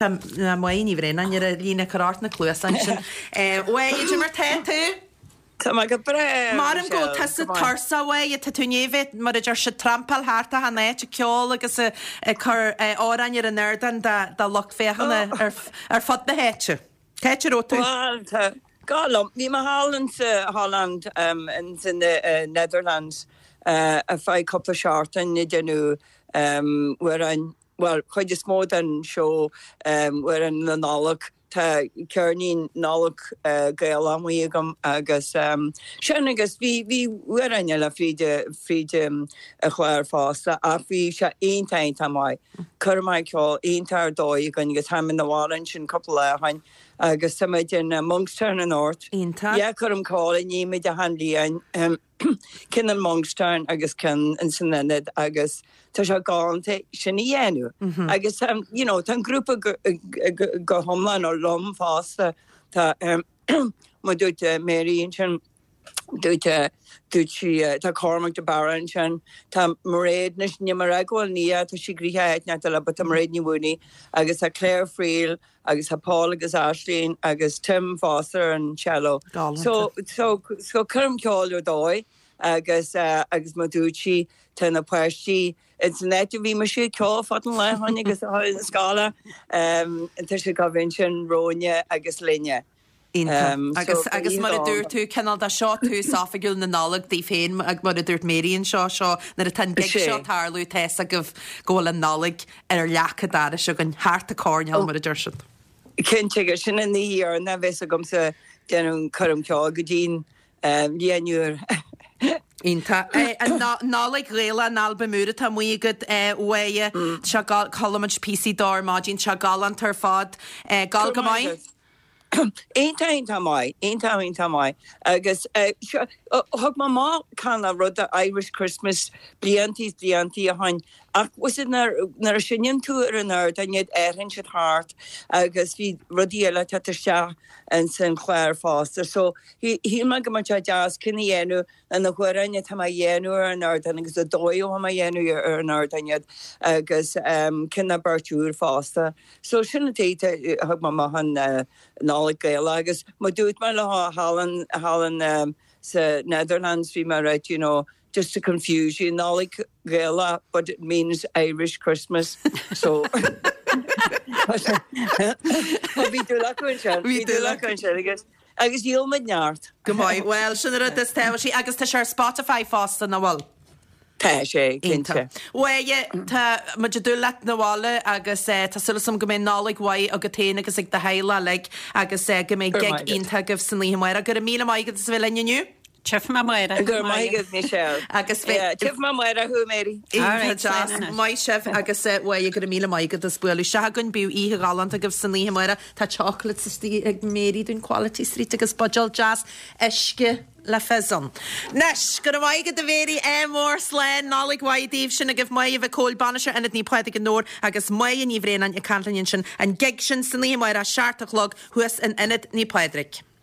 Tá Máire Ní Bhraonáin ar an líne ag cur ort na cluasa ansin. A Mháire, cad é mar tá tú? Tá mé go breá, Maram go bhfuil tusa tuirseach a Mháire, tá tú i ndiaidh a bheith, mar a deir siad, trampáil thart achan áit ag ceol agus ag cur amhráin ar an ardán do lucht féachana ar fud na háite. Cá háit a raibh tú? Bhuel, tá go liom. Bhí mé thall in sa Holland, in sa Netherlands, ar feadh cúpla seachtain ag déanamh amhráin bhuel, chuid is mó den seó amhráin na Nollag, tá ceirnín Nollag Gaelach amuigh agam agus sin agus bhí, bhí amhráin eile fríd, fríd an chlár fosta ach bhí sé iontach, iontach maith. Coirm ceoil iontach ar dóigh againn agus tháinig muid 'na bhaile ansin cúpla lá ó shin agus tá muid in Monkstown anocht. Iontach. Yeah, coirm ceoil a ní muid achan bhliain. Ceann in Monkstown agus ceann ins an Ionad agus tá sé galánta sin a dhéanamh. Agus you know tá an grúpa go hiomlán liom fosta. Tá mar dúirt Mary ansin, dúirt dúirt sí tá Cormac de Barra ansin, tá Mairéad anois níl mé ag rá go bhfuil Nia, tá sí gnoitheach áit inteacht eile but tá Mairéad Ní Mhaonaigh agus tá Claire Friel agus tá Paul agus Aisling agus Tim fosta ar an cello. So, so, so coirm ceoil ar dóigh agus, agus mar dúirt sí, tá na páistí ins an áit a bhí mise ag ceol fad an lae ó shin agus na scoile, tá siad ag gabháil ansin romhainne agus linne. Iontach. Agus, agus mar a dúirt tú, cineál de seo tús oifigiúil na Nollag daoibh féin, mar a dúirt Mary anseo, seo, nuair atá an gig seo ag tarlú, tá fhios agaibh go bhfuil an Nollaig ar leac an dorais againn, thart an coirnéal, mar a deir siad. Cinnte, agus sin an oíche dheireanach a bheas agamsa ag déanamh coirm ceoil go dtí'n mbliain úr. Iontach. An Nollaig Ghaelach, an albam úr atá amuigh agat, a Mháire, tá sé gal, chuala muid píosaí dó ar maidin, tá sé galánta ar fad. Gabháil go maith? Iontach, iontach maith, iontach, iontach maith. Agus seo, thug mé amach cineál rud Irish Christmas bliantaí is bliantaí ó shin ach was it nuair nuair a seinneann tú ar an ardán iad athraíonn siad thart agus bhí rudaí eile ag teacht isteach ins an chlár fosta. So shíl mé go mbeadh sé deas ceann a dhéanamh le na hamhráin atá mé a dhéanamh ar an ardán agus an dóigh atá mé a dhéanamh ar an ardán iad agus ceann nó beirt úr fosta. So sin an tuige a thug mé amach an Nollaig Gaelach agus mar dúirt mé leo thall in thall in sa Netherlands bhí mé right you know just to confuse you Nollaig Ghaelach but it means Irish Christmas so bhí dúil acu ansin bhí dúil acu ansin agus Agus dhíol muid neart. Go maith. Bhuel, sin an rud is tábhachtaí. Agus tá sé ar Spotify fosta, nach bhfuil? Tá sé, cinnte. Bhuel, tá muid ag dúil leat 'na bhaile agus tá súil agam go mbeidh Nollaig mhaith agat féin agus ag do theaghlach uilig agus go mbeidh gig iontach agaibh san oíche amárach. Go raibh míle maith agat as a bheith linn inniu. Tchífidh mé amárach. Go raibh maith agat, Michelle. Agus bheidh. Tchífidh mé amárach thú, Mary. Iontach deas. Maith sibh agus bhuel, go raibh míle maith agat as bualadh isteach againn. Bíodh oíche ghalánta agaibh san oíche amárach. Tá chocolates istigh ag Mary dúinn Quality Street agus buidéal deas uisce le fizz ann. Anois, go raibh maith agat a Mhary, ádh mór, slán, Nollaig mhaith daoibh. Sin agaibh Máire Mhic Cóil, Bainisteoir Ionad Naomh Pádraig i nDobhar agus Máire Ní Bhraonáin ag caint linn ansin. An gig sin san oíche amárach, 7 a chlog, thuas in Ionad Naomh Pádraig.